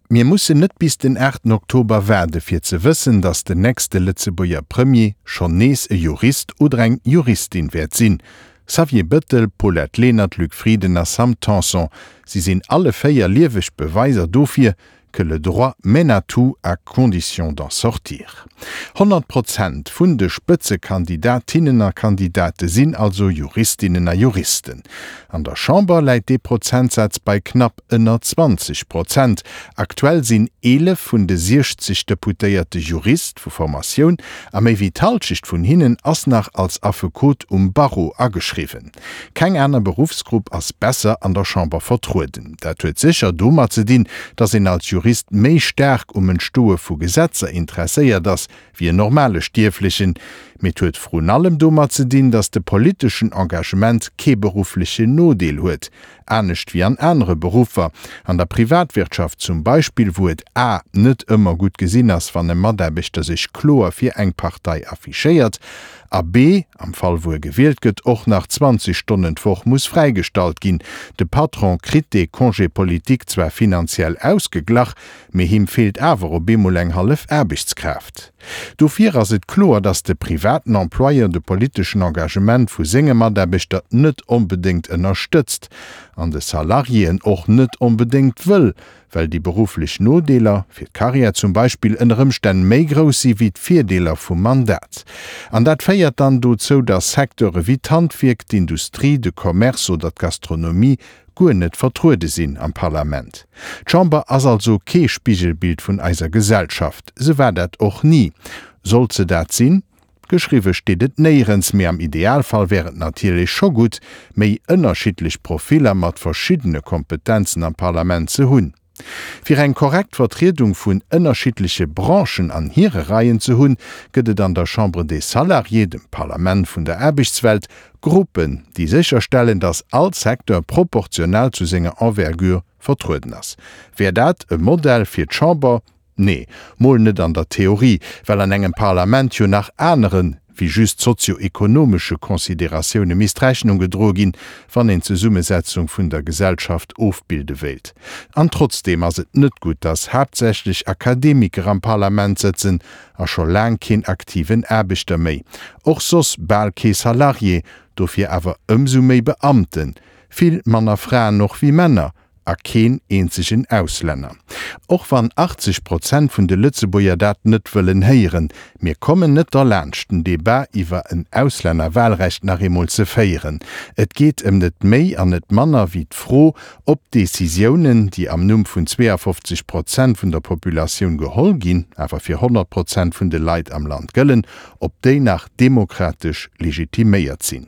Mir mussen net bis den 8 Oktober waarde fir ze wëssen, datt den nächste Lëtzebuerger Premier schonn nees e Jurist oder eng Juristin wäert sinn. Xavier Bëttel, Paulette Lenert, Luc Frieden a Sam Tanson, si sinn alle 4 lieweg Beweiser dofir, que le droit mène à tout à condition d'en sortir. 100 Prozent vun de Spëtzekandidatinnen a Kandidate sinn also Juristinnen a Juristen. An der Chamber läit dee Prozentsaz bei knapp ënner 20 Prozent. Aktuell sinn 11 vun de 60 Deputéierte Jurist vu Formatioun a méi wéi d'Hallschecht vun hinnen ass nach als Affekot um Barreau ageschriwwen. Keng aner Beruffsgrupp ass besser an der Chamber vertrueden. Dat huet sécher domat ze dinn, datt een als Jurist méi staark um Entstoe vu Gesetzer interesséiert ass, wéi en normale Stierflechen. Mee et huet vrun allem domat ze dinn, datt de politeschen Engagement kee berufflechen Nodeel huet, anescht wéi an anere Beruffer, an der Privatwirtschaft zum Beispill, wou et a net ëmmer gutt gesinn ass, wann e Mataarbechter sech kloer fir eng Partei affichéiert, a b am Fall wou e gewielt gëtt, och nach 20 Stonnen d'Woch muss fräigestallt ginn. De Patron kritt dee Congé politique zwar finanziell ausgeglach, mee him feelt awer op eemol eng hallef Aarbechtskraaft. Dofir ass et kloer, datt de privaten Employeur de politeschen Engagement vu senge Mataarbechter net onbedéngt ënnerstëtzt an de Salariéen och net onbedéngt wëll, well déi berufflech Nodeeler, fir d'Karriär zum Beispill, ënner Ëmstänn méi grouss si wéi d'Virdeeler vum Mandat. An dat féiert dann dozou, datt Secteure wéi d'Handwierk, d'Industrie, de Commerce oder d'Gastronomie guer net vertruede sinn am Parlament. D'Chamber ass also kee Spigelbild vun eiser Gesellschaft. Se war dat och ni. Sollt se dat sinn? Geschriwwe steet et néierens, mee am Idealfall wär et natierlech scho gutt, méi ënnerschiddlech Profiller mat verschiddene Kompetenzen am Parlament ze hunn. Fir eng korrekt Vertriedung vun ënnerschiddleche Branchen an hire Reien ze hunn, gëtt et an der Chambre des Salariés, dem Parlament vun der Aarbechtswelt, Gruppen, déi sécherstellen, datt all Secteur proportional zu senger Envergure vertrueden ass. Wär dat e Modell fir d'Chamber? Nee, mol net an der Theorie, well an engem Parlament jo nach anere wéi just sozio-ekonomesche Consideratioune misst Rechnung gedroe ginn, wann een d'Zesummesetzung vun der Gesellschaft ofbilde wéilt. An trotzdeem ass et net gutt, datt haaptsächlech Akademiker am Parlament sëtzen a scho laang keen aktiven Aarbechter méi, och soss bal kee Salarié, dofir awer ëmsou méi Beamten, vill manner Fraen och wéi Männer, A keen eenzegen Auslänner. Och wann 80 Prozent vun de Lëtzebuerger dat net wëllen héieren. Mir kommen net derlaanscht, den Debat iwwer en Auslännerwahlrecht nach eemol ze féieren. Et geet ëm net méi an net manner wéi d'Fro, ob d'Décisiounen, déi am Numm vun 52 Prozent vun der Populatioun geholl ginn, awer fir 100 Prozent vun de Leit am Land gëllen, ob déi nach demokratesch legitiméiert sinn.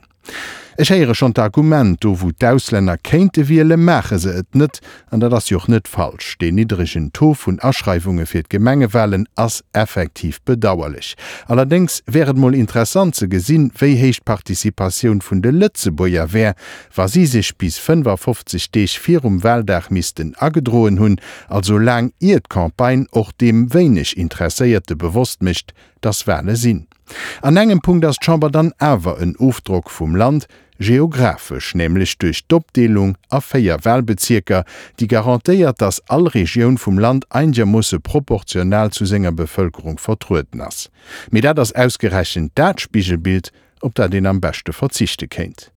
Ech héiere schonn d'Argument, do wou d'Auslänner kéinte wielen, maache se et net. An dat ass jo och net falsch. Deen niddregen Taux vun Aschreiwunge fir d'Gemengewalen ass effektiv bedauerlech. Allerdéngs wär et mol interessant ze gesinn, wéi héich d'Participatioun vun de Lëtzebuerger wär, wa si sech bis 55 Deeg virum Waldag missten agedroen hunn, also laang ier d'Campagne och deem wéineg Interesséierte bewosst mécht, dass Wale sinn. An engem Punkt ass d'Chamber dann awer en Ofdrock vum Land, geographesch, nämlech duerch d'Opdeelung a 4 Wahlbezierker, déi garantéiert, dass all Regioun vum Land einegermoosse proportional zu senger Bevëlkerung vertrueden ass. Mee dat ass ausgerechent dat Spigelbild, op dat een am beschte verzichte kéint.